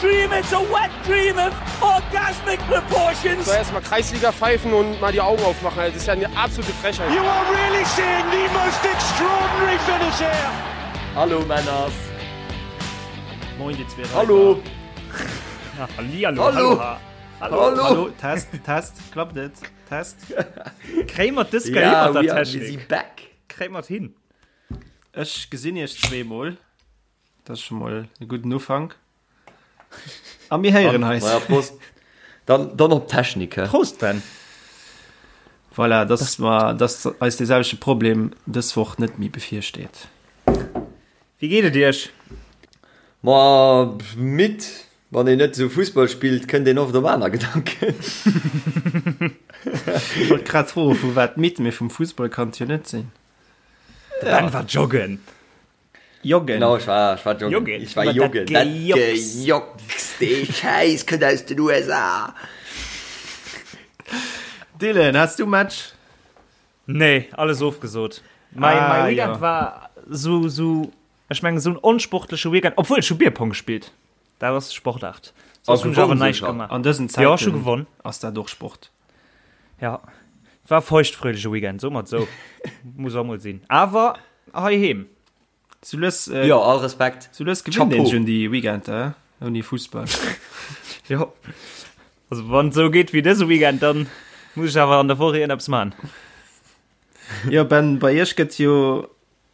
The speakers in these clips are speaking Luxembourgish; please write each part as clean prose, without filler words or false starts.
dream, it's a wet dream of orgasmic proportions. So erstmal Kreisliga pfeifen und mal die Augen aufmachen. Das ist ja eine absolute Frechheit. You are really seeing the most extraordinary finish here. Hallo Männers. Moin déi zwee Hallo. Hallihallo. Hallo. Hallo. Hallo. Hallo. Test, Test, klappt et? Test. Kréie mer dës Kéier Ja, hin mat der we are busy Technik? back. Kréie mer et hin? Ech gesinn iech zweemol. Dat ass scho mol e gudden Ufank. A mir héieren eis. Naja, Prost. Dann, dann op d'Technik, hä? Prost, Ben. Voilà, dass mer, dass eis dee selwechte Problem dës Woch net méi bevirsteet. Wéi geet et iech? Ma midd. Wann een net esou Fussball spillt, kënnt een oft op aner Gedanken. Ech wollt grad froen, vu wat midd, mee vum Fussball kann et jo net sinn. De Ben war joggen. Joggen. Genau, ech war, ech war joggen. Joggen. Ich war Iwwer dat joggen. Dat Gejocks. Gejocks, dee Schäiss kënnt aus den USA. Dylan, has du Match? Nee, alles ofgesot. Mein, Ah, mein Weekend ja. war sou, sou, ech mengen, sou en onsportleche Weekend. Obwuel, ech hu Bierpong gespillt. Dat ass Sportaart. Soss Ah, hunn ech awer gewonnen näischt sogar. gemaach. An dësen Ja, ech hu Zäiten gewonnen. ass dat och Sport. Ja, war feuchtfröhleche Weekend, so mat sou. Muss och mol sinn. Awer heiheem. Sou lues, äh, Jo, all Respekt. sou lues gewinnt een Chapeau. schon déi Weekender, äh, ouni Fussball. Jo. Also wann et sou geet wéi dëse Weekend, dann muss ech awer an der Woch iergendeppes man. Jo, Ben, bei iech gëtt jo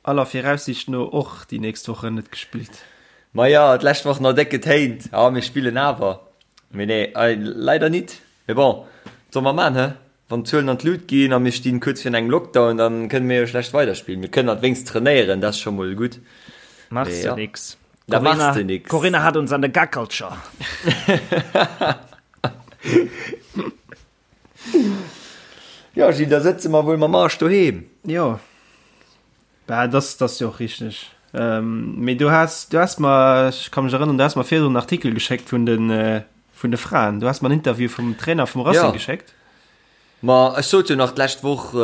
aller Viraussicht no och déi nächst Wochen net gespillt. Maja, d'lescht Woch nach déck getéint, ah mir spillen awer. Mee nee, leider nit. Mee bon, wat solle mer man, he? Wann d'Zuelen an d'Lut ginn a mir stinn kuerz virun engem Lockdown, dann kënne mir jo schlecht weiderspillen. Mir kënnen at wéngst trainéieren, dat ass scho mol gutt. Machs Mee de ja, nix. da machs Corinna, de nix. Corinna hat uns an der Gackelcher. Jo Gilles, da sëtze mer wuel mam Arsch doheem. Jo, bah, dat ass jo och richteg. Mee du has, du has mer, ech ka mech erënneren, du has mer virdrun en Artikel geschéckt vun de, vun de Fraen. Du has mer en Interview vum Trainer vum Racing Ja. geschéckt. Ma ech sot jo nach d'lescht Woch,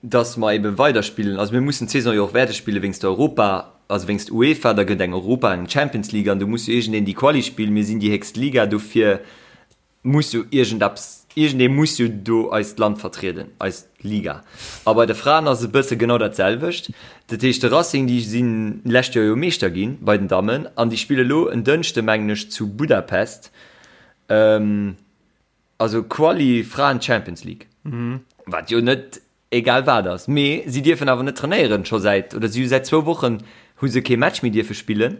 dass mer eben weiderspillen. Also mir mussen d'Saison jo och wäerte spillen wéinst der Europa, also wéinst UEFA, da gëtt eng Europa, eng Champions League an do muss jo iergendeen déi Quali spillen. Mir sinn déi héchst Liga, dofir muss jo iergendeppes, iergendee muss jo do eist Land vertrieden, eis Liga. A bei de Fraen ass et e bësse genau dat selwecht. Dat heescht, de Racing, déi sinn d'lescht Joer jo Meeschter gi bei den Dammen an déi spille lo en Dënschde mengen ech zu Budapest, also Quali Fraen Champions League, wat jo net egal wat ass. Mee si dierfen awer net trainéieren scho säit, oder si hu säit zwou Wochen hu se kee Match méi dierfe spillen.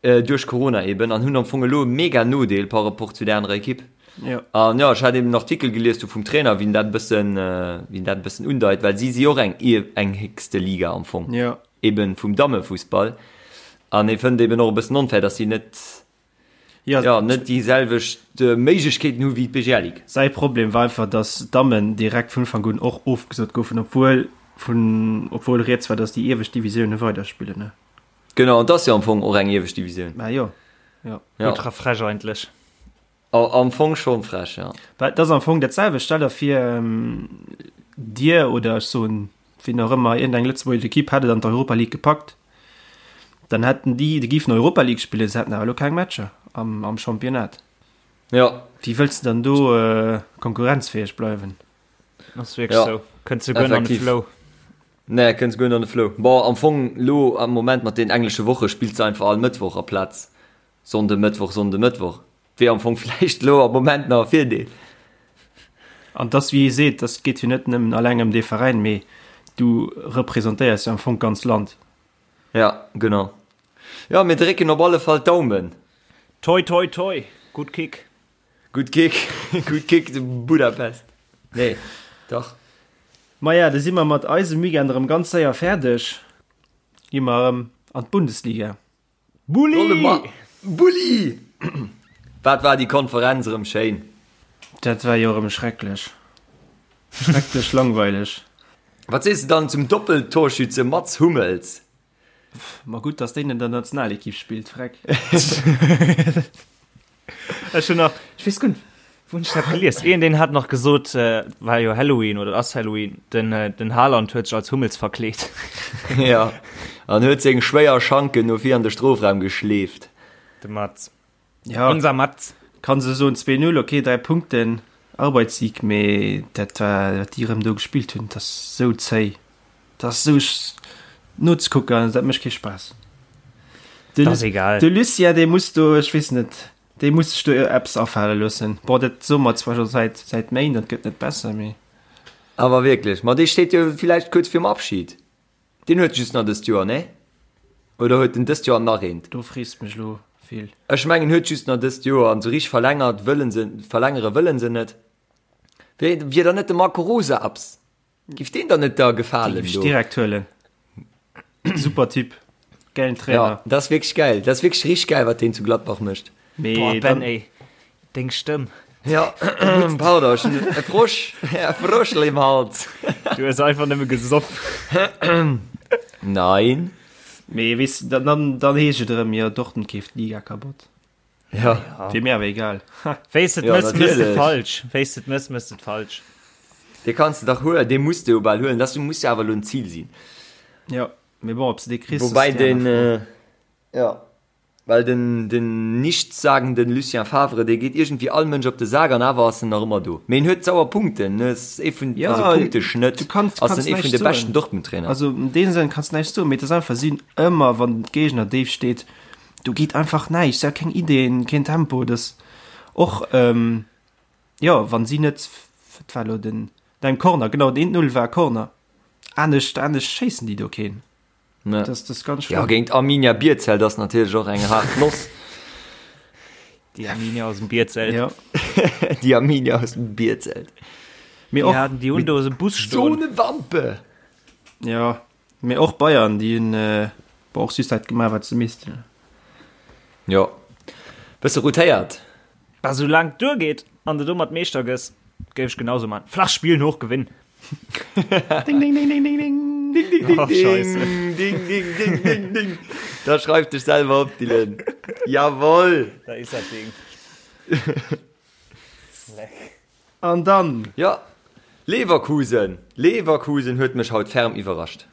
Duerch Corona eben, an hunn am Fong elo e mega Nodeel par rapport zu där anerer Ekipp. Jo. An jo, ech hat eben en Artikel gelies do vum Trainer, wien dat e bëssen, wien dat e bëssen undeit, well si si och eng, eng héchste Liga am Fong, Jo. eben vum Dammefussball. An hie fënnt eben och e bëssen onfair, datt si net, Jo. jo, net déi selwecht Méiglechkeeten hu wéi d'BGL Ligue. Säi Problem war einfach, datt d'Dammen direkt vun Ufank un och ofgesot goufen, obwuel vun, obwuel rieds war, datt déi iewescht Divisioune weiderspillen. Genau, an 't ass jo am Fong och eng iewescht Divisioun. Mä jo, jo. Ja. Ultra frech eigentlech. Am Fong schon frech, ja. Well et ass am Fong dat selwecht. Stell der vir, dir oder ech soen wien och ëmmer, iergendeng lëtzebuergesch Ekipp hätt et an d'Europa League gepackt, dann hätten déi, déi géifen Europa League spillen, se hätten awer elo keng Matcher am, am Championnat. Ja. Wéi wëlls de dann do konkurrenzfäeg bleiwen? Ass wierklech Ja. sou. Kënns du guer net an de Effektiv. Flow. Nee, kënns guer net an de Flow. Bon, am Fong lo am Moment mat den englesche Woche spills de einfach all Mëttwoch aplaz Sonnde, Mëttwoch, Sonnde, Mëttwoch. Wier am Fong vläicht lo am Moment nach e Virdeel. An dass, wéi ee seet, dass geet jo net nëmmen alleng ëm dee Veräin, mee du representéiers jo am Fong d'ganz Land. Ja, genau. Jo, mir drécken op alle Fall d'Daumen. Toi toi toi, gutt Kick. Gutt Kick, gutt Kick de Budapest. Nee, dach. Maja, da si mer mat eisem Weekend erëm ganz séier fäerdeg. Gi mer erëm an d'Bundesliga. Bulli! Bulli! Wat war déi Konferenz erëm schéin. Dat war jo erëm schrecklech. Schrecklech langweileg. Wat sees de dann zum Doppeltorschütze Mats Hummels? Ma gutt, dass deen an der Nationalekipp spillt, freck. Ech hunn nach, ech weess guer net, wou hunn ech dat gelies? Een, deen hat nach gesot, war jo Halloween oder ass Halloween, den, den Haaland huet sech als Hummels verkleet. Ja, an huet seng schwéier Schanken no vir an de Strofraum geschleeft. De Mats. Ja, Unser Mats. Kann se soen 2-0, okay, 3 Punkten, Arbeitssieg, mee dat war, wat déi erëm do gespillt hunn, dat ass sou zéi, dat ass sou nozekucken, dat mécht kee Spaass. De, Dat ass egal. De Lucien, dee muss do, ech weess net, dee muss sech do eppes afale loossen. Bon, dat soe mer zwar scho säit, säit Méint, dat gëtt net besser, mee. Awer wierklech, ma dee steet jo villäicht kuerz virum Abschied. Deen huet just nach dëst Joer, nee? Oder huet en dëst Joer an nach eent? Do frees de mech elo vill. Ech mengen en huet just nach dëst Joer an sou richteg verlängert wëllen se, verlängere wëllen se net. Wéi, wier dann net de Marco Rose abs? Giff deen der net da Dee gefalen giff ech do? direkt huelen. Super Typ, gäilen Ja, Trainer. dat ass wierklech gäil. Dat ass wierklech richteg gäil, wat deen zu Gladbach mécht. Mee Boah, Ben, dann, ey, deng Stëmm. Ja, pardon, ech hunn e Frosch, e Froschel im Hals. Du hues einfach nëmme gesoff. Nein. mee weess de, dann, dann, dann heescht et erëm, jo, Dortmund keeft d'Liga kabott. Ja. Wier mir awer egal. Ha. Wéis et Ja, mëss, mëss et natierlech. falsch. Wéis et mëss, mëss et falsch. Dee kanns de dach huelen, dee muss de jo bal huelen. Dat muss jo awer elo en Zil sinn. Ja, mee bon, ob s de dee kriss, ass Woubäi déi den, aner Fro. ja. Well den den nichtssagenden Lucien Favre, dee geet iergendwéi all Mënsch op de Sak an awer ass en nach ëmmer do. Mee en huet sauer Punkten, en ass ee vun, Ja, also Punkteschnëtt, du kanns, ass kanns en ee vun näischt de beschten soen. Dortmund-Trainer. Also an deem Sënn kanns näischt soen, mee et ass einfach, si hunn ëmmer, wann de Géigner déif steet, do geet einfach näischt, si hu keng Ideen, keen Tempo, dat och, jo, wann si net, wat war elo den, den Corner, genau, den 1-0 war Corner, anescht, anescht schéissen déi do keen. Ne. Das, das ganz ja, géint Arminia Bierzelt ass natierlech och eng hart Noss. Déi Arminia aus dem Bierzelt. Ja. Déi Arminia aus dem Bierzelt. Mir och, och, haten déi hunn do e Bus stoen. So ne Wampe! Ja, mee och Bayern, déi hunn äh, och just dat gemaach, wat se missten. Jo. Bësse rotéiert. Bah, soulaang et duergeet an de domat Meeschter gëss, géif ech genauso man. Flach spillen, hoch gewinnen. Ding, ding, ding, ding, ding, ding. Ding, ding, ding, Oh, Scheiße. ding, ding, ding, ding, ding. Da schreif dech selwer op, Dylan. Jawoll. Da is dat Ding. An dann? Ja, Leverkusen. Leverkusen huet mech haut ferm iwwerrascht.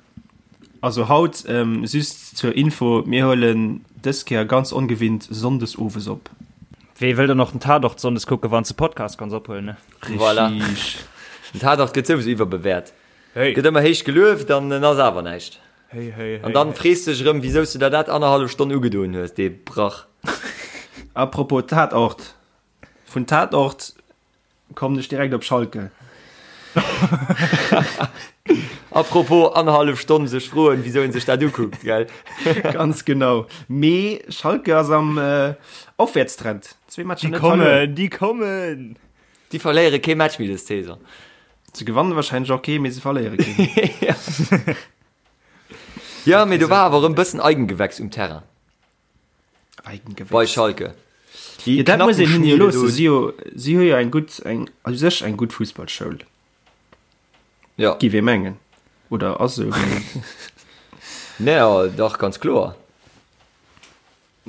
Also haut, ähm, just zur Info, mir huelen dës Kéier ganz ongewinnt Sonndes owes op. Wee wëll dann och den Tatort Sonndes kucken, wann s de Podcast kanns ophuelen, ne? Voilà. Richtig. Den Tatort gëtt souwisou iwwerbewäert. Hey. Gëtt ëmmer héich gelueft an en ass awer näischt. Hey, hey, hey, An dann hey. frees dech erëm, wisou s du der dat annerhallef Stonn ugedoen hues, dee Brach. Apropos Tatort, vun Tatort Kommen ech direkt op Schalke. Apropos annerhallef Stonn sech froen, wisou een sech dat ukuckt, gell? Ganz genau. Mee Schalke ass am äh, Aufwärtstrend. Zwee Matcher Déi net verluer. kommen, déi kommen! Déi verléiere kee Match méi dës Saison. Se gewannen wahrscheinlech och kee, mee se verléiere keen. Ja, mee do war awer erëm bëssen Eigengewächs um Terrain. Eigengewächs. Bei Schalke. Déi Ja, dat muss een hinne jo Knappenschmiede loossen. do. Si jo, si hu jo eng gutt, eng, a sech eng gutt Fussballschoul. Ja. Giff ee mengen. Oder ass esou. mee- Nee, ja, dach, ganz kloer.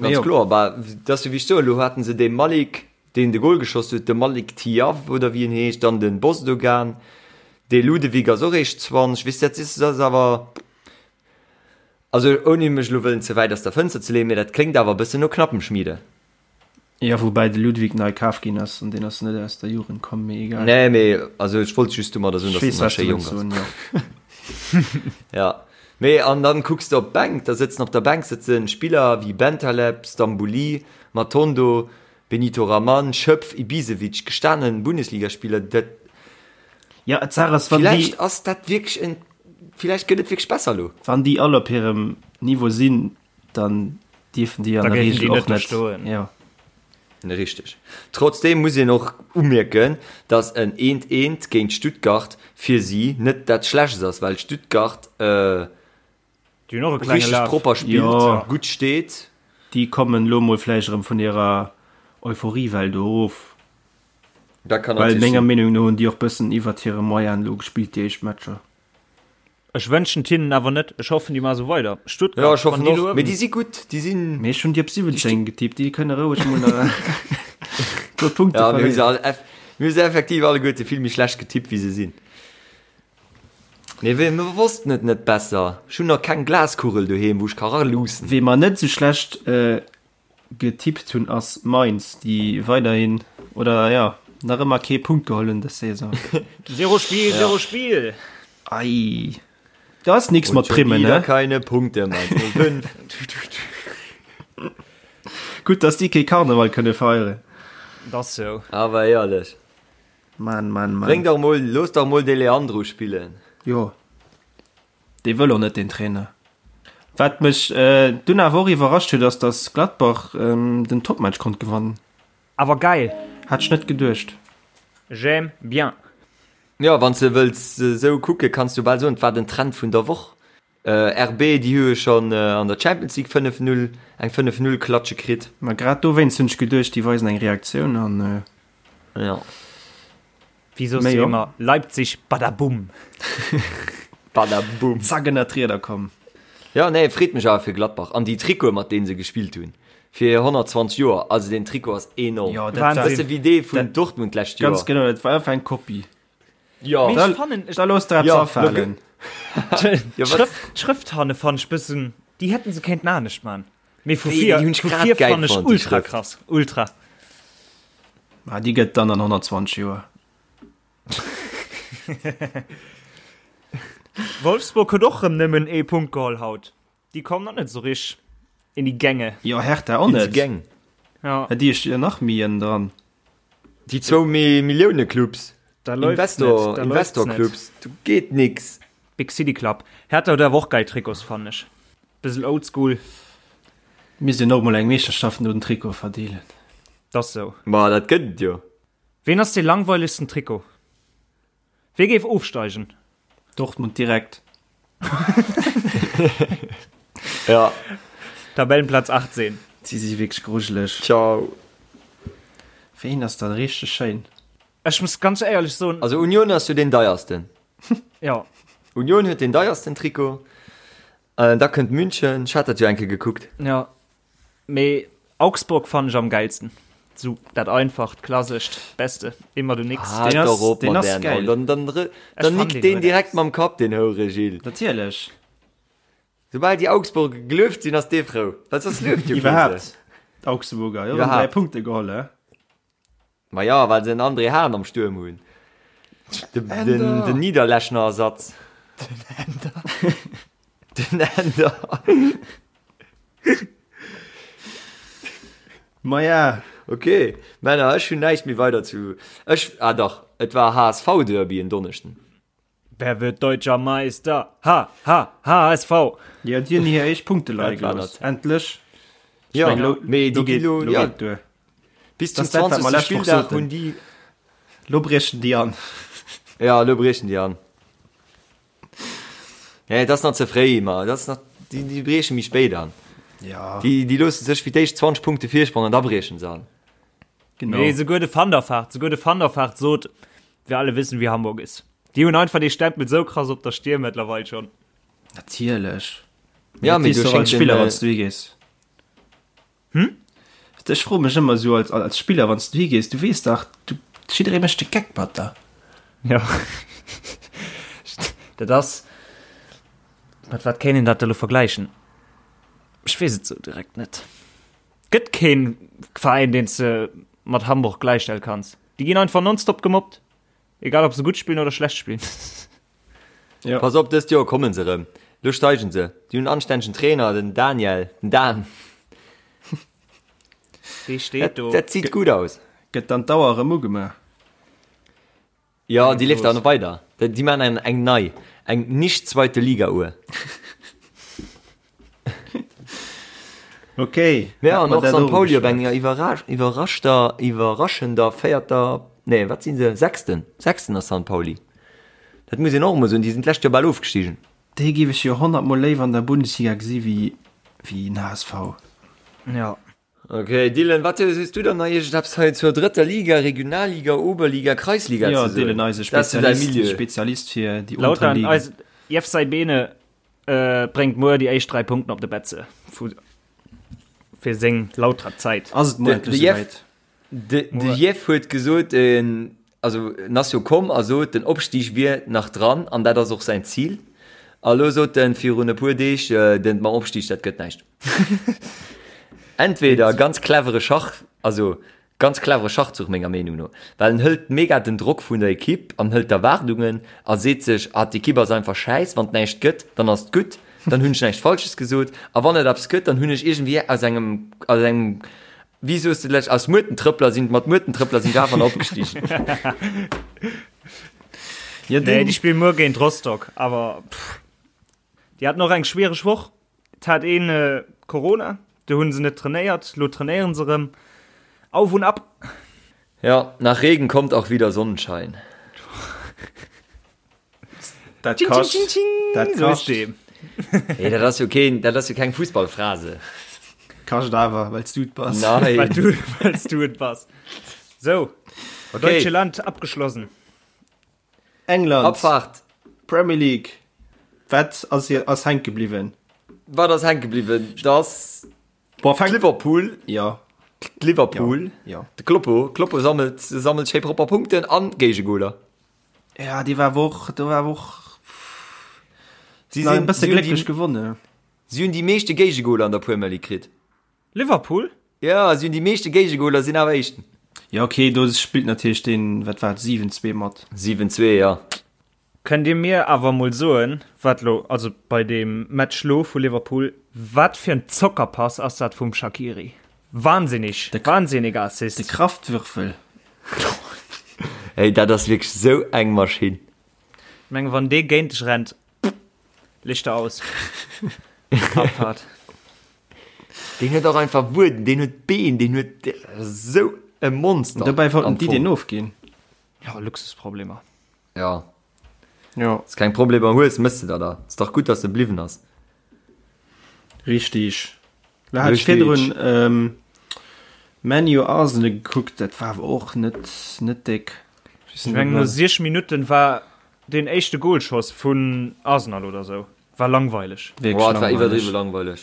Ganz jo. kloer. Bah, dat ass jo wéi ech soen, elo haten se dee Malik, deen de Gol geschoss huet, de Malik Thiaw oder wéi en heescht, dann den Bozdogan, dee Ludewig ass och eréischt 20, weess de, dat is, dat ass awer. Also ouni mech elo wëllen ze wäit aus der Fënster ze leeën, mee dat kléngt awer e bëssen no Knappenschmiede. Jo, woubäi de Ludwig nei kaf ginn ass an deen ass net aus der Jugend komm, mee egal. Nee, mee also ech wollt just domadder soen, Ech dass weess, en nach wat schéi du jonk wëlls ass. soen, jo. Ja, mee an dann kucks de op d'Bänk, da sëtzen op der Bänk sëtzen Spiller wéi Bentaleb, Stambouli, Matondo, Benito Raman, Schöpf, Ibisevic, gestanen Bundesligaspiller, dat. Ja, d'Saach ass, wann déi. Villäicht ass dat wierklech en. Villäicht gëtt et wierklech besser elo. Wann déi all op hirem Niveau sinn, dann dierfen déi an Da der géifen Regel déi net och do net. stoen. Jo. Richteg. Trotzdeem muss een och umierken, datt en eent eent géint Stuttgart fir si net dat Schlechtst ass, well Stuttgart Déi hunn och e klenge richteg Laf. propper spillt, Jo. gutt steet. Déi kommen elo mol vläicht erëm vun hirer Euphoriewell do erof. Dat kann Well natierlech menger sinn. Meenung no hunn déi och bëssen iwwert hire Moyen elo gespillt déi éischt Matcher. Ech wënschen et hinnen awer net. Ech hoffen, déi maache sou weider. Stuttgart, Ja, ech wann hoffen déi och. luewen. Mee déi si gutt, déi sinn. Mee ech hunn déi op 17 getippt, déi kënne roueg mol nach e puer Punkte Ja, mir hu se verléieren. all eff, mir hu se effektiv alleguerte vill méi schlecht getippt, wéi se sinn. Mee wéi, mir wossten et net besser. Ech hunn nach keng Glaskugel doheem, wou ech ka raluussen. Wee mer net sou schlecht. Getippt hunn ass Mainz, déi weiderhin, oder jo, nach ëmmer kee Punkt geholl hunn dës Saison. Zero Spiel, zero Spiel! Ei, do ass nix mat Primmen, ne? Keine Punkte, Mainz 05. Gutt, dass déi kee Karneval kënne feieren. Dat ass sou. Awer éierlech. Mann, Mann, Mann. Bréng dach mol, looss dach mol de Leandro spillen. Jo. Dee wëll och net, deen Trainer. Wat mech dunn awer och iwwerrascht huet, ass dass Gladbach den Topmatch konnt gewannen. Awer geil! Hat ech net geduecht. J'aime bien. Jo, wann s de wëlls esou kucke kanns du bal soen, et war den Trend vun der Woch. RB, déi hu jo schonn an der Champions League 5, 0, eng 5, 0 Klatsche kritt. Ma grad dowéinst hunn ech geduecht, déi weisen eng Reaktioun an. Jo. Wéi soss du ëmmer, Leipzig, badaboom! Badaboom! Zack ënnert d'Rieder komm. Jo, nee, freet mech awer fir Gladbach. An déi Trikote, mat deene se gespillt hunn, fir 120 Joer, also deen Trikot ass enorm. Jo, dat war. Bësse wéi dee vun Dortmund d'lescht Joer. Ganz genau, dat war einfach eng Kopie. Jo. Mee ech fannen. Da looss der eppes afalen. D'Schrëft hanne fannen ech bëssen, déi hätten se kéinten anescht man. Mee vu vir, vu vir fannen ech ultra krass, ultra. Ah, déi gëtt dann an 120 Joer. Wolfsburg huet och rëm nëmmen ee Punkt geholl haut. Déi kommen och net esou rich in die Gänge. Jo, Hertha och net. Gäng. Ja. Déi sti jo nach méi ënnen dran. Déi zwou Millioune-Clubs. Da läuft's net. Da läuft's net. Investor-Clubs, do geet nix. Big City Club. Hertha huet awer och geil Trikots, fannen ech. Bëssel oldschool. Misst een och mol eng Meeschterschaft no den Trikote verdeelen. T'ass sou. Ma dat gëtt et jo. Ween ass dee langweilegsten Trikot? Wee géif ofsteigen? Dortmund direkt. Ja. Tabellenplatz 18. Si si wierklech grujeleg. Ciao. Ween ass dann richteg schéin? Ech muss ganz éierlech soen. Also Union ass jo deen deiersten. Ja. Union huet deen deiersten Trikot. Da kënnt München, ech hat dat jo eng Kéier gekuckt. Ja, mee Augsburg fannen ech am geilsten. Sou dat einfacht, klassescht, beste, immer du nix. Ah, Deen ass, doch op deen mat ass dären geil. Dann, dann, dann Ech fann nickt deen deen huet direkt eppes. mam Kapp, deen Houre Gilles. Natierlech. Soubal déi Augsburger gelueft sinn, ass dee frou. Well soss lueft jo kee se. Iwwerhaapt, d'Augsburger, jo, hunn 3 Iwwerhaapt. Punkte geholl, he? Ma ja, well se en André Hahn am Stuerm hunn. De, den, den Niederlechner Ersatz. Den Ender. Den Ender. Ma ja. Okay, Männer, ech hunn näischt méi weider zu. Ech, ah dach, et war HSV-Derby en Donneschden. Wer wird deutscher Meister? Ha, ha, HSV! Jo, déi hunn hir éischt Punkte leie Dat war gelooss. dat. Endlech. Ja, Ech meng, lo, mee lo déi gi geet, lo, lo ja, geet duer. bis zum Das dat, wat mer 20. lescht Woch Spilldag soten. hunn déi. Lo briechen déi an. Ja, lo briechen déi an. Nee, dat ass nach ze fréi, ma dat ass nach, déi, déi brieche méi spéit an. Ja, Déi, déi loosse sech fir d'éischt 20 Punkte Virsprong an da briechen se an. genau. Nee, souguer de Van der Vaart, souguer de Van der Vaart sot, Wir alle wissen, wie Hamburg ist. Déi hunn einfach dee Stempel sou krass op der Stier mëttlerweil schonn. Natierlech. Ja, Dat mee weess du du och als schéngt den, Spiller, äh, wann s du higees. Hm? Ech froe mech ëmmer esou als, als Spiller, wann s du higees, du weess dach, du, jidderee mécht de Geck mat der. Ja. Dat ass, mat wat kéint een dat elo vergläichen? Ech weess et sou direkt net. Gëtt keen Veräin deen s de mat Hamburg gläichstelle kanns. Déi ginn einfach nonstop gemobbt, egal ob se gutt spillen oder schlecht spillen. Ja. Pass op, dëst Joer kommen se erëm. Lo steigen se. Déi hunn en anstännegen Trainer, den Daniel, den Dan. Dee steet do. Dat zitt gutt aus. Gëtt dann d'Auer erëm ugemaach? Jo, déi leeft dann weider. Déi maachen eng, eng nei, eng nicht zweite Liga Uhr. Ok. Ja, an och St. Pauli op enger iwwerraschter, iwwerraschender véierter, nee, wat sinn se, sechsten, sechsten ass St. Pauli. Dat muss een och emol soen, déi sinn d'lescht Joer bal ofgestigen. Déi géif ech jo 100 mol léiwer an der Bundesliga gesi wéi wéi en HSV. Ja. Ok, Dylan, wat hues du dann nach iergendeppes hei zur drëtter Liga, Regionalliga, Oberliga, Kreisliga Ja, ze soen? Dylan, eise Dat ass jo däi Spezialist, Milieu. Spezialist fir déi unteren Lautern, Ligen. eis Jeff Saibene äh, bréngt muer déi éischt 3 Punkten op de Betze vu fir seng Lauterer Zäit. Ass et muer De, de endlech Jeff, esouwäit? de, de Jeff huet gesot, en, also en ass jo komm a sot, den Opstig wier nach dran an dat ass och säin Zil. A lo sot en virun e puer Deeg, den mam Opstig, dat gëtt näischt. Entweder ganz clevere Schach, also ganz clevere Schachzuch menger Meenung no, well en hëlt mega den Drock vun der Ekipp an hëlt d'Erwaardungen a seet sech, ah d'Ekipp ass einfach schäiss, wann et näischt gëtt, dann ass et gutt, dann hunn ech näischt Falsches gesot a wann et eppes gëtt, dann hunn ech iergendwéi aus engem, aus engem, wéi soos de lech, aus Muertentrëppler sinn, mat Muertentrëppler sinn ech awer nach opgestigen. Ja, nee, déi spillen muer géint Rostock, awer pff, déi haten och eng schwiereg Woch. Et hat een Corona, do hunn se net trainéiert, lo trainéieren se rëm. Auf und ab! Ja, nach Regen kommt auch wieder Sonnenschein. Dat kascht. Dat kascht. Hey, dat ass jo keen, dat ass jo keng Fussballphrase. Kascht awer, well s du et bass. Nein. Well du, well s du et bass. So, Okay. Deutsche Land abgeschlossen. England, Abfahrt. Premier League, wat ass, ass hänke bliwwen? Wat ass hänke bliwwen? Dass Boah, fänk, Liverpool, ja, Liverpool, ja. de Kloppo, Kloppo sammelt, sammelt schéi propper Punkten an Géigegoler. Ja, déi war och, do war och Si e sinn, bësse si hunn glécklech déi, gewonnen. si hunn déi meeschte Géigegoler an der Premier League kritt. Liverpool? Ja, si hunn déi meeschte Géigegoler, sinn awer Éischten. Ja, okay, do spillt natierlech deen, wat war et, 7-2 mat. 7-2, ja. Kënnt Dir mir awer mol soen, wat lo, also bei deem Match lo vu Liverpool, wat fir en Zockerpass ass dat vum Shaqiri? Wahnsinnig, wahnsinniger Assist. De Kraftwürfel. Hey, dat ass wierklech sou eng Maschinn. Ech mengen, wann dee géint dech rennt, Lichter aus. Abfahrt. Deen huet och einfach Wueden, deen huet Been, deen huet sou e Monster. Dobäi wollten déi deen ofginn. Ja, Luxusproblemer. Ja. Ja. Wanns keng Problemer hues, mëss de der der. Ass dach gutt, dass e bliwwen ass. Richtig. Da hat ech Richtig. virdrun ähm, ManU Arsenal gekuckt, dat war awer och net, net déck. Ech mengen no 6 Minutten war deen éischte Goalschoss vun Arsenal oder sou. War langweileg. Wierklech Boah, et war langweileg. iwwerdriwwe langweileg.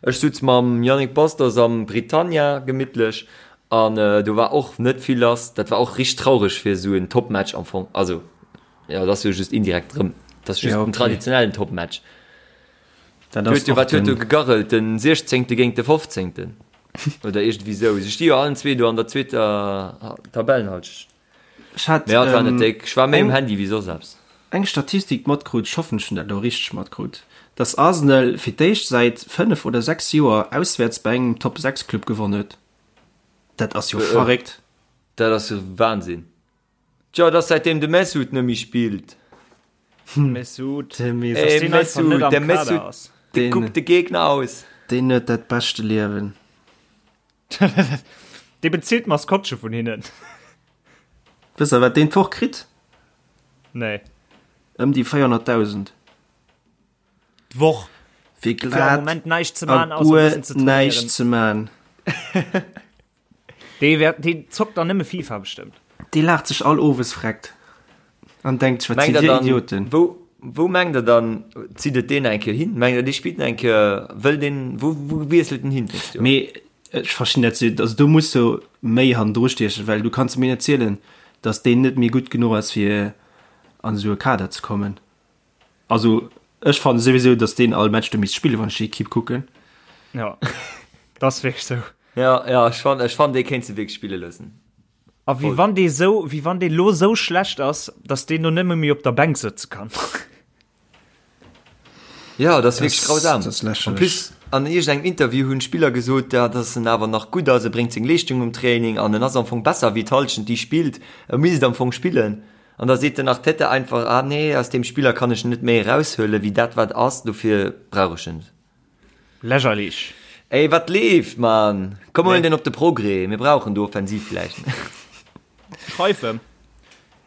Ech sutz mam Yannick Bastos am Britannia gemittlech an do war och net vill lass. Dat war och richteg traureg fir esou en Topmatch am Fong. Also, jo, dat ass jo just indirekt erëm, dat ass just Ja, en okay. traditionellen Topmatch. Dat Du ass huet jo, och wat huet do den, gegarrelt, den 16. géint de 15. Oder iergendwéi sou. Se sti jo allen zwee do an der zweeter Tabellenhalschent. ech hat Mee ja, et war net ähm, déck. Ech war méi um eng, Handy wéi soss eppes. eng Statistik matkrut, ech hoffen ech hunn dat elo richteg matkrut, dass Arsenal fir d'éischt säit 5 oder 6 Joer auswäerts bei engem Top 6 Club gewonn huet. Dat ass jo verréckt. Dat ass jo Wahnsinn. Tjo, et ass säitdeem de Mesut net méi spillt. Mesut. De Mesut. Ey, deen einfach net Mesut, am der Kader Mesut, ass. dee Den- kuckt de Gegner aus. Deen huet dat beschte Liewen. Dee bezilt d'Maskottche vun hinnen. Wësst der wat deen d'Woch kritt? Nee. Ëm déi 400.000. D'Woch. Fir Fir am glat Moment näischt ze a man, ausser e guer bëssen ze näischt trainéieren. ze man. Dee wäert, dee zockt dann nëmme FIFA bestëmmt. Dee laacht sech all owes freckt an denkt sech, wat Mengt sidd der dir dann, Idioten. wou, wou mengt der dann, zitt et deen eng Kéier hin? Mengt der, dee spillt nach eng Kéier, wëll deen, wou, wou wiesselt en hin d'nächst Joer? Mee ech verstinn dat, also do muss jo méi hannendru stiechen, well du kanns mir net zielen, datt deen net méi gutt genuch ass fir an esou e Kader ze kommen. Also ech fannen souwisou, datt deen all Match do misst spillen, wann ech déi Equipe kucken. Ja, dat ass wierklech sou. Ja, ja, ech fannen, ech fannen, dee kéint se wierklech spille loossen. A wéi wann dee sou, wéi wann dee lo sou schlecht ass, datt deen do nëmme méi op der Bänk sëtze kann. Ja, dat ass wierklech grausam. Dat ass En lächerlech. plus, an iergendengem Interview hunn d'Spiller gesot, ja, datt en awer nach gutt ass, e bréngt seng Leeschtung um Training an en ass am Fong besser wéi d'Hallschent, déi spillt. E misst am Fong spillen. An da seet den Arteta einfach, ah nee, aus deem Spiller kann ech net méi eraushuelen, wéi dat wat ass, dofir brauch ech en net. Lächerlich. Ey, wat leeft, Mann? Komm, huelen den op de Progrès, mir brauchen do offensiv vläicht. Schreif em.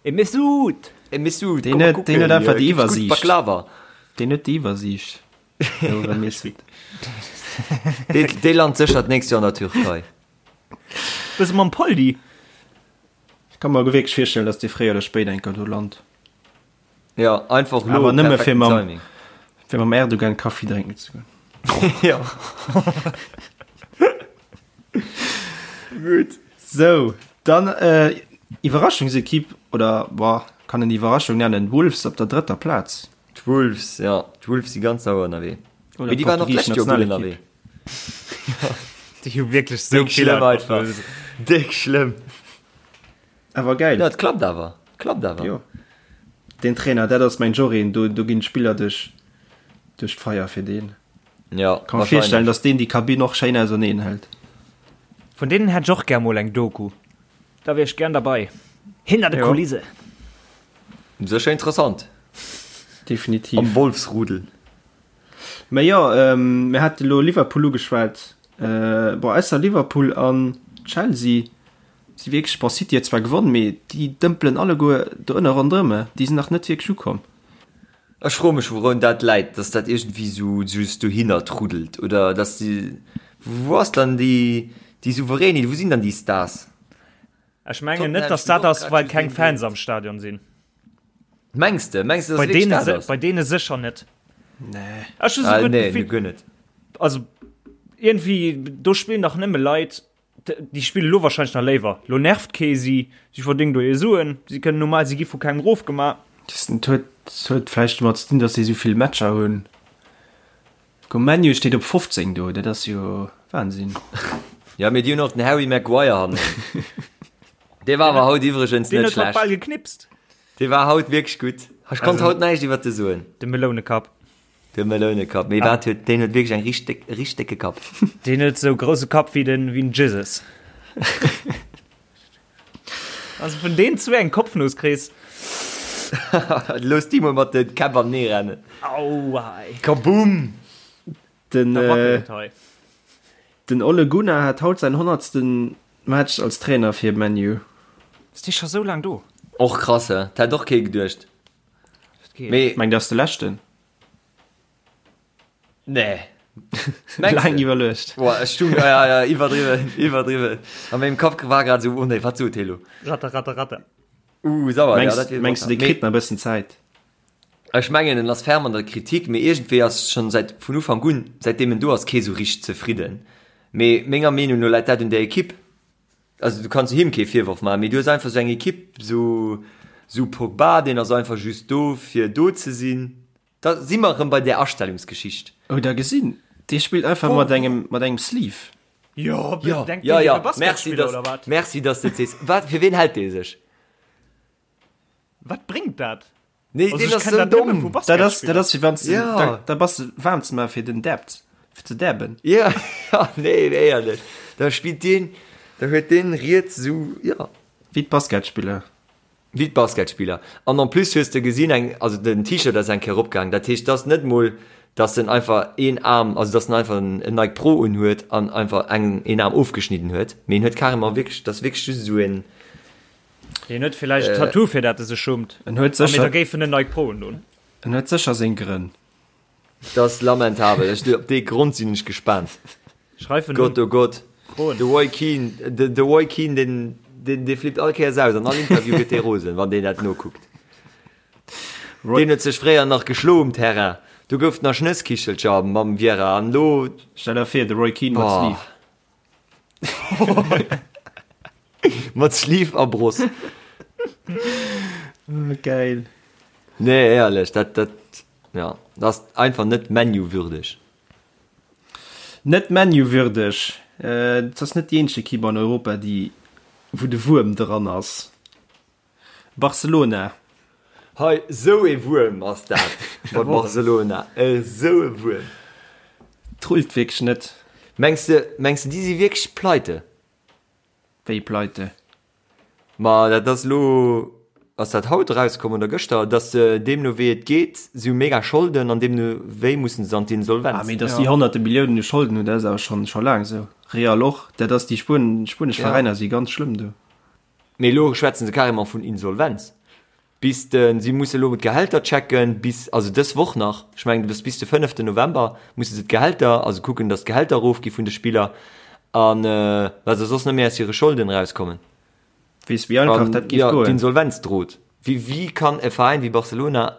E Mesut! E Mesut, Deen komm mal huet, kucken, deen huet einfach hier déi gibt's gutt Iwwersiicht. Baklava. Deen huet déi Iwwersiicht. De Mesut. Dee, dee lant sécher d'nächst Joer an der Türkei. Bësse mam Poldi. Ech ka mer wierklech virstellen, dass dee fréier oder spéider eng Kéier do lant. Ja, einfach lo Awer nëmme fir perfekten mam, Timing. fir mam Erdogan Kaffi drénken ze goen. Ja. Gutt. Sou, dann äh, Iwwerraschungsekipp, oder boah, kann en Iwwerraschung nennen, Wolves op der drëtter Plaz. D'Wolves, ja, d'Wolves si ganz sauer ënnerwee. Oder Mee déi waren och d'portugisesch d'lescht Joer gutt Nationalekipp. ënnerwee. Déi hu wierklech sou Déck vill schlëmm einfach. Déck schlëmm. Awer geil. Ja, et klappt awer. Klappt awer. Jo. Deen Trainer, dat ass mäin Jorin, do, do ginn d'Spiller duerch, duerch d'Feier fir deen. Ja, Kann mer virstellen, dass deen déi Kabinn och schéin auserneen hält. Vun deenen hätt ech och gär mol eng Doku. Da wier ech gär derbei. Hinter de Jo. Kulisse. Sécher interessant. Definitiv. Am Wolfsrudel. Mä jo, mir hate lo Liverpool ugeschwat. Bon, ausser Liverpool an Chelsea si wierklech, bon, City huet zwar gewonn, mee déi dëmpelen alleguer do ënne ronderëm, déi sinn nach net wierklech ukomm. Ech froe mech wourun dat läit, dass dat iergendwéi sou just dohinner truddelt oder dass déi, wou ass dann déi déi Souveränit, wou sinn dann déi Stars? Ech mengen net, dass dat ass, well keng Fans am Stadion sinn. Mengs de? Mengs de, dass Bei et wierklech deene dat se, ass? bei deene sécher net. Nee. Ech hu Ah, souguer nee, d'Gefill, guer net. also irgendwie do spillen dach nëmme Leit, d- déi spille lo wahrscheinlech nach léiwer. Lo nervt kee si, si verdéngen do hir Suen, si kënnen normal, si gi vu kengem rofgemaach. Das huet, das huet vläicht domat ze dinn, dass si esou vill Matcher hunn. Guck, ManU steet op 15 do, dat ass jo Wahnsinn. Ja, mee déi hunn och den Harry Maguire hannen. Dee war awer haut iwwregens Deen net huet haut schlecht. bal geknipst. Dee war haut wierklech gutt. Ech konnt haut näischt iwwert de soen. De Melounekapp. De Melounekapp. Mee wat huet, deen huet wierklech eng richteg, richteg décke Kapp. Deen huet sou grousse Kapp wéi den, wéi den Jesus. Also vun deen zwee eng Kopfnuss kriss. Looss déi mol mat de Käpp an nee rennen. Aua ey. Kaboom! Den, Da äh, wackelt et hei. den Ole Gunnar hat haut säin honnertsten Match als Trainer fir ManU. Ass dee scho sou laang do? Och krass, he? Dat hätt och kee geduecht. Dat geet. Mee Meng, dat ass de leschten. Nee. Mengst Laang du? iwwerluecht. Boah, ech stung, ja, ja, iwwerdriwwen, iwwerdriwwen. A mengem Kapp war grad esou, oh nee, wat sot hie lo? Ratter, ratter, ratter. Uh, sauer, ja, Mengs, dat wier mengs du, dee Mee kritt nach e bëssen Zäit? ech mengen, en ass ferm an der Kritik, mee iergendwéi ass schonn säit vun Ufank un, säitdeem en do ass, kee sou richteg zefridden. Mee menger Meenung no läit dat un der Ekipp. Also du kanns him kee Virworf maachen, mee du hues einfach sou eng Ekipp, sou, sou Pogba, deen ass einfach just do fir do ze sinn. Da si mer erëm bei där Astellungsgeschicht. Oh da gesinn, dee spillt einfach mat engem mat engem Sleeve. Jo, Jo, denkt jo, deen, dee jo, wier merci, Basketspiller dass, oder wat? merci, dass de et sees. Wat, fir ween hält dee sech? Wat bréngt dat? Nee, Also deen ech ass kenn sou dat nëmme domm. vu Dat ass dat Basketspiller. ass wéi wann s de Ja. da da bass de waarm ze maache fir den Dab, fir ze dabben. Ja, ja, nee, éierlech. Da spillt deen, da huet deen riets sou, ja. Wéi d'Basketspiller. Wéi d'Basketspiller. An en plus hues de gesinn, eng, also den T-Shirt ass eng Kéier eropgaang, dat heescht, dass net mol, dass en einfach een Aarm, also dass en einfach en Nike Pro unhuet an einfach eng, een Aarm ofgeschnidden huet, mee en huet carrément wierklech, dat ass wierklech just esou een. Hien huet villäicht e Tattoo, fir dat e sech schummt. En huet A mee da sécher, géif en en Nike Pro undon. en huet sécher seng Grënn. Dat ass lamentabel. Ech, op dee Grond sinn ech gespaant. Schreif en Gott, un. oh Gott. Froen. De Roy Keane, de, de Roy Keane, deen, deen, dee flippt all Kéiers aus. An all Interview gëtt dee rosen, wann deen dat nokuckt. Roy. Deen huet sech fréier nach geschlo um Terrain. Do gouf et nach Schnësskichelcher mam Vieira. An elo. Stell der vir, de Roy Keane mat Boah. Sleeve. Mat Sleeve a Bross. Geil. Nee, éierlech, dat, dat, ja, dat ass einfach net ManU-würdeg. Net ManU-würdeg. Et ass net déi eenzeg Ekipp an Europa, déi, wou de Wuerm dran ass. Barcelona. Hei, sou ee Wuerm ass dat bei Barcelona. Esou e Wuerm. Trullt wierklech net. Mengs de, mengs de, déi si wierklech pleite? Wéi pleite? Ma dat ass elo, ass dat haut erauskomm oder gëschter, datt se deemno wéi et geet, si hu mega Scholden an deemno wéi mussen se an d'Insolvenz. Ah, mee datt déi honnerte Milliounen u Scholden hunn, dat ass awer schonn scho laang esou. Real och, dat ass déi spuenesch Ja. Veräiner si ganz schlëmm do. Mee elo schwätzen se carrément vun Insolvenz. Bis de, si musse elo d'Gehälter checken, bis, also dës Woch nach, ech mengen bis bis de fënneften November musse se d'Gehälter, also kucken, datt d'Gehälter erofgi vun de Spiller an well se soss net méi aus hire Scholden erauskommen. Weess wéi einfach An dat géif jo, goen. d'Insolvenz drot. Wéi, wéi kann e Veräin wéi Barcelona,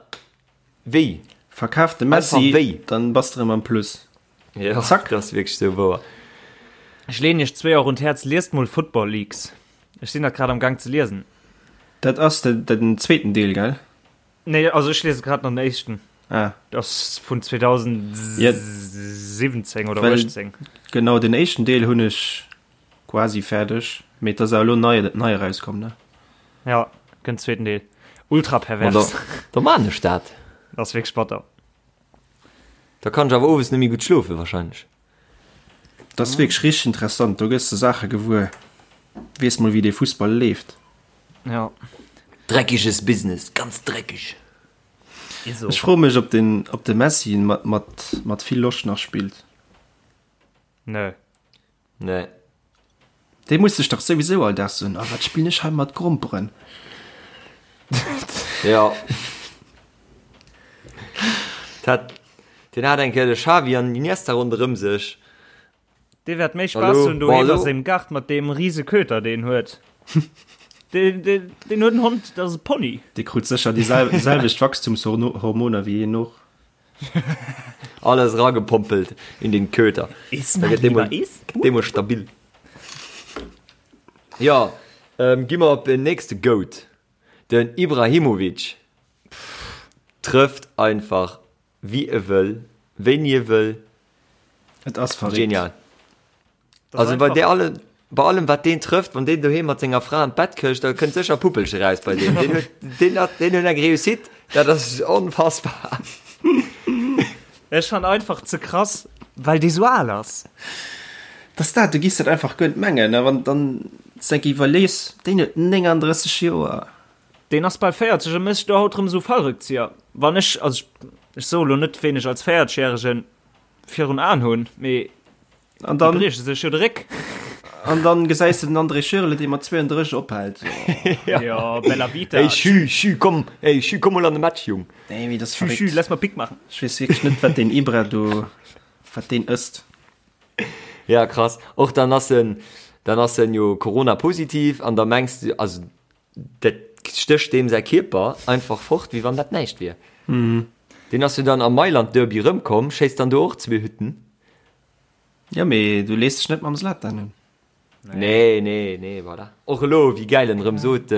wéi? Verkaf de Einfach Messi, wéi? dann bass de rëm am Plus. Jo, Zack. dat ass wierklech esou wouer. Ech leen iech zwéi och un d'Häerz, liest mol Football Leaks. Ech sinn dat grad am Gang ze liesen. Dat ass de, den zweeten Deel, gell? Nee, also ech liese grad nach den éischten. Ah. Dat ass vun 2007. 17 oder 18. Genau, den éischten Deel hunn ech quasi fäerdeg, mee et ass awer elo nei, nei erauskomm, ne? Ja, kënnt zweeten Deel. Ultra pervers. Da, da maan ech dat. Dat ass wierklech batter. Da kann ech awer owes net méi gutt schlofen wahrscheinlech. Dat ass wierklech richteg interessant, do gëss de Saache gewuer. Weess mol wéi dee Fussball leeft. Ja. Dreckiges Business, ganz dreckig. Ech froe mech op den, op de Messi mat, mat, mat vill Loscht nach spillt. Nö. Nee. Dee muss sech dach souwisou all Dag soen, oh wat spillen ech hei mat Gromperen. Ja. Dat, deen hat eng Kéier de Xavi an Iniesta ronderëm sech. Dee wäert méi Spaass hunn doheem a sengem Gaart mat deem rise Köter, deen en huet. Deen, deen, deen huet en Hond, dat ass e Pony. Dee krut sécher déi selwecht Wachstumshormoner wéi een och. Alles ragepompelt in den Köter. Iss, mein Lieber, iss. Dee mol stabil. Ja, ähm, gi mer op den nächste Goat. Den Ibrahimovic trëfft einfach wéi e wëll, wéini e wëll. Et ass verréckt. Genial. Also bei der alle, bei allem wat deen trëfft, wann deen doheem mat senger Fra an d'Bett këscht, da kënnt sécher e Puppelche raus bei deem. Deen huet, deen hat, deen huet eng Réussite, dat ass onfassbar. Ech fan einfach ze krass, well dee sou al ass. Dass dat, du giss dat einfach guer net mengen, a wann dann s enk iwwerlees, deen huet 39 Joer. Deen ass bal 40 a mécht do haut rëm esou Fallrückzieher. Wann ech, also ech, ech soe lo net, ween ech als 40 järegen virun Aen hunn, mee An dann, déi brieche sech jo de Réck. An dann gesäis de den André Schürrle, dee mat 32 ophält. Ja. Ja, bella vita. Ey, Schü, Schü, komm, ey, Schü, komm mol an de Match, Jung. Nee, mee dat ass Schü, Schü, verréckt. lass mal Pick machen. Ech weess wierklech net, wat deen Ibra do, wat deen ësst. Ja, krass. Och dann ass en, dann ass en jo Corona-positiv an da mengs du, also dat stécht deem säi Kierper einfach fort, wéi wann dat näischt wier. Deen ass jo dann am Mailand-Derby rëmkomm, schéisst dann do och zwee Hütten. Jo, mee du lees dech net mam Zlatan un. Nee, nee, nee, voilà. Och elo, wéi gäil en erëm sot,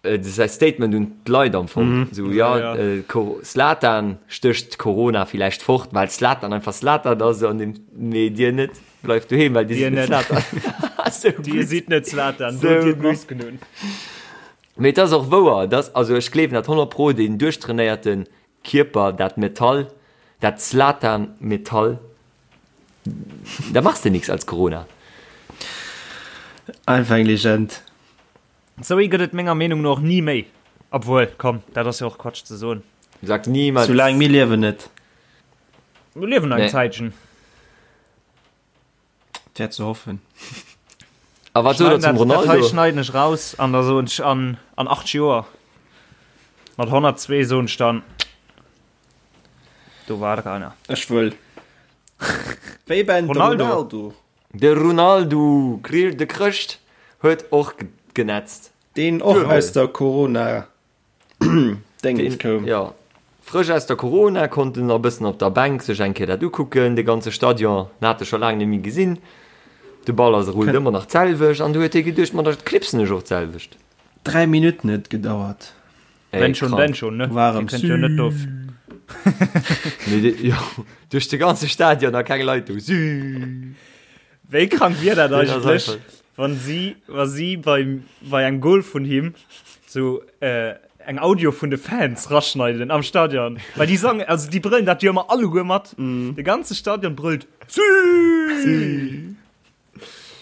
säi Statement un d'Leit am Fong, esou, jo, Zlatan stécht Corona villäicht fort, well Zlatan einfach Zlatan ass, an deem, mee dir net, bleift doheem, well dir sidd net Zlatan. Sou gutt. Dir sidd net Zlatan, dot dir d'Masken un. Mee et ass och wouer, dass, also ech gleewen dat 100 pro, deen duerchtrainéierte Kierper, dat Metall, dat Zlatan-Metall, da machs de nix als Corona. Einfach eng Legend. Sou ee gëtt et menger Meenung no och ni méi. Obwuel, komm, dat ass jo och Quatsch ze soen. Sag niemals. Soulaang mir liewen net. Mir liewen nach eng Nee. Zäitchen. Et wär ze hoffen. A wat sot der zum Dat hei Ronaldo? schneiden ech raus an da soen ech an, an 8 Joer mat 102 soen ech dann, do war der einer. Ech wëll. Wéi beim Ronaldo. Ronaldo. De Ronaldo, de Chrëscht, huet och genetzt. Deen och aus der Corona Déngens koum. Jo, frësch aus der Corona, konnt en nach e bëssen op der Bänk sech eng Kéier dat ukucken, de ganze Stadion, en hat e scho laang net méi gesinn. De Ball ass rullt ëmmer nach d'selwecht an du huet hie geduecht, ma da knipsen ech och d'selwecht. 3 Minutten huet et gedauert. Ey, Wenn schon, krank. denn schon, ne? War Dir em kënnt jo net do. Nee, de, jo, duerch de ganze Stadion a keng Leit do. Süü. Wéi krank wier dat Deen ass eigentlech, einfach- wann si, wa si beim, bei engem Goal vun him sou äh, eng Audio vun de Fans raschneiden am Stadion. Well déi sangen, also déi brëllen dat jo ëmmer alleguer mat. De ganze Stadion brëllt Süü!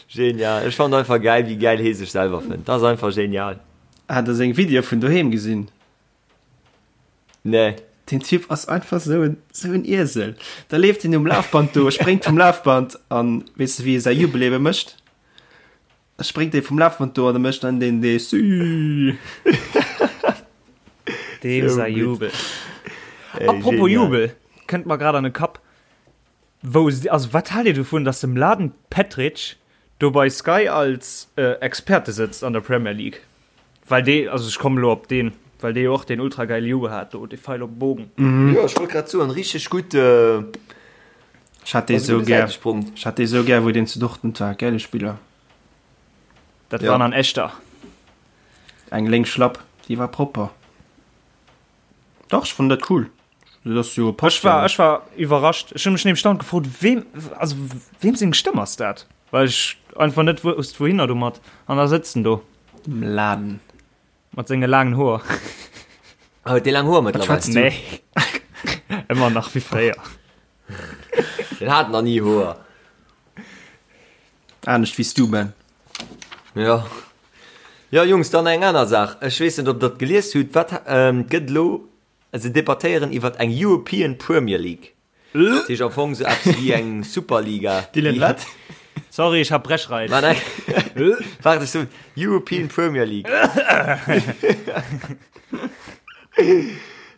Genial. Ech fand einfach geil, wéi geil hee sech selwer fënnt. Dat ass einfach genial. Hat der seng Video vun doheem gesinn? Nee. Den Typ ass einfach sou en, sou en Iesel. Da leeft en um Lafband do, spréngt vum Lafband an weess de wéi e säi Jubel ebe mécht? Da spréngt e vum Lafband do an e mécht dann deen dee Süü. Deem Sou säi gutt. Jubel. Ey, Apropos genial. Jubel, kënnt mer grad an de Kapp. Wou, also wat haalt Dir dovun, dass de Mladen Petric do bei Sky als Experte sëtzt an der Premier League? Well dee, also ech kommen elo op deen, well dee jo och deen ultra geile Jubel hat do, dee Feil op de Bogen. Jo, ech wollt grad soen, richteg gutt. Ech hat dee sou gär, ech hat dee sou gär, wou deen zu Dortmund war, gäile Spiller. Dat Ja. war an echter. Eng lénk Schlapp, déi war propper. Dach, ech fannen dat cool. Dat ass jo passt Ech war, jo. ech war iwwerrascht. Ech hu mech nämlech dauernd gefrot, weem, also weem seng Stëmm ass dat? Well ech einfach net wousst, wouhinner domat. An da sëtzt en do. Dem Laden. Mat senge laangen Hoer. Ah, huet dee laang Hoer mëttlerweil? schwätzt du? Nee. Ëmmer nach wéi fréier. Den hat nach ni Hoer. Anescht wéi s du, Ben. Jo. Jo, Jungs, dann eng aner Saach. Ech weess net, ob Der et gelies hutt. Wat gëtt elo, se debattéieren iwwert eng European Premier League. Dat heescht am Fong sou eppes wéi eng Superliga. Dylan, wat? Sorry, ech hat Brechreiz. Nein, nein. Waart, ech soen European Premier League.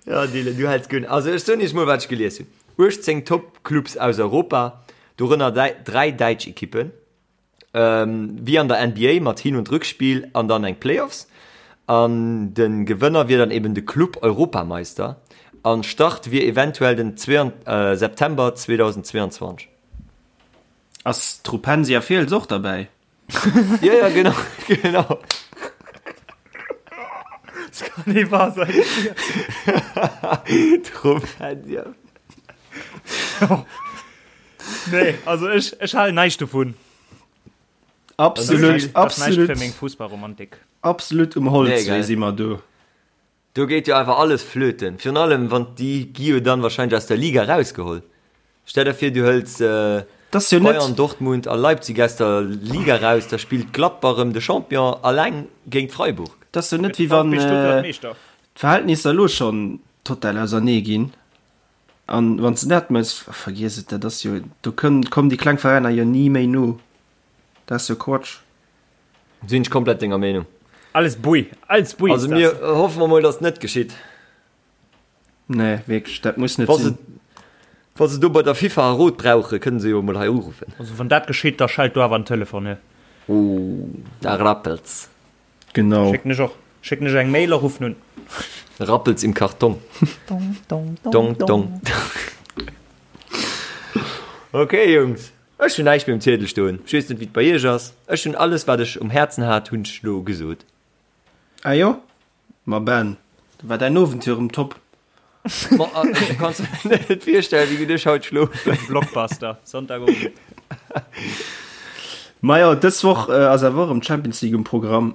Ja, Dylan, du häls guer net. Also ech soen iech mol, wat ech gelies hunn. 18 Top-Clubs aus Europa, dorënner 3 däitsch Ekippen. Wéi an der NBA mat Hin und Rückspiel an dann eng Playoffs. An de Gewënner wier dann eben de Club Europameister. An Start wier eventuell den September 2022. Ass d'Rupensia Fiels och derbäi? Jo, jo, genau, genau. Das kann nicht wahr sein. D'Rupensia. Nee, also ech, ech halen näischt dovun. Absolut, Das ass näischt absolut, fir meng Fussballromantik. absolut um Nee, Holzwee gell. si mer do. Do geet jo einfach alles flöten. Virun allem, wann déi gi jo dann wahrscheinlech aus der Liga rausgeholl. Stell der vir, du hëls Das ass jo net, Bayern, Dortmund a Leipzig aus der Liga raus, da spillt Gladbach erëm de Champion alleng géint Freiburg. das ass jo net, wéi wann VfB Stuttgart Meeschter. d'Verhältnisser elo schonn total ausernee ginn. An wann s de dat mëss, vergiess et, dat ass jo, do kënn, kommen déi kleng Veräiner jo ni méi no. Dat ass jo Quatsch. Sinn ech komplett denger Meenung. Alles Bui, alles Bui Also ist das. mir hoffe mer mol, dass et net geschitt. Nee, wierklech, dat muss net Wa se, sinn. wa se do bei der FIFA e Rot brauchen, kënnen se jo mol hei uruffen. Also wann dat geschitt, da schellt do awer en Telefon, he. Oh, da rappelt's. Genau. Schécken ech och. Schécken ech eng Mail a ruffen un. Rappelt's im Karton. Dong, dong, Dong, dong, dong. dong. Ok, Jungs, ech hunn näischt méi um Ziedel stoen. Ech weess net, wéi et bei iech ass. Ech hunn alles, wat ech um Häerzen hat, hunn ech elo gesot. Ah jo? Ma Ben, da war däin Owend jo erëm top. Ma du kanns der net virstellen, wéi gutt ech haut schlofen. Blockbuster, Sonntagowend. Majo, dës Woch ass awer och erëm d'Champions League um Programm.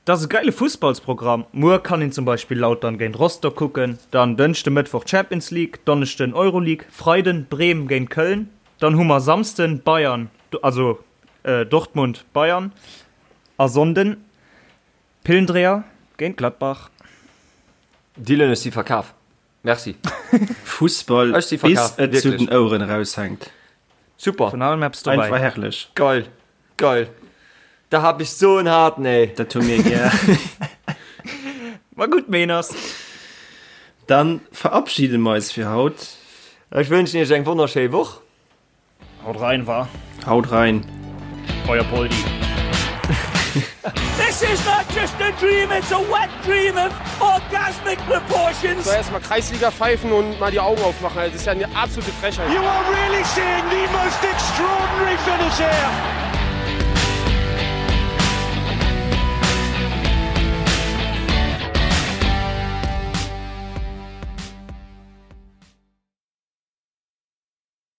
Dat ass e geile Fussballsprogramm. Muer kann een zum Beispill Lautern géint Rostock kucken, dann Dënschde, Mëttwoch Champions League, Donneschden Euroleague, Freiden Bremen géint Köln, dann hu mer Samsden Bayern, also Dortmund Bayern a Sonnden Pillendreher géint Gladbach. Dylan, ech si verkaf. Merci. Fussball Ech si bis verkaf, et zu wierklech. den Oueren eraushänkt. Super. Vun allem eppes dobäi. Einfach herrlech. Geil. Geil. Da hab ich so en harten, ey. Dat hu mir gär. War gutt, Meeners. Dann verabschiede mer eis fir haut. Ech wënschen iech eng wonnerschéi Woch. Haut rein, wa? Haut rein. Euer Poldi. This is not just a dream, it's a wet dream of orgasmic proportions. So erstmal Kreisliga pfeifen und mal die Augen aufmachen. Das ist ja eine absolute Frechheit. You are really seeing the most extraordinary finish here.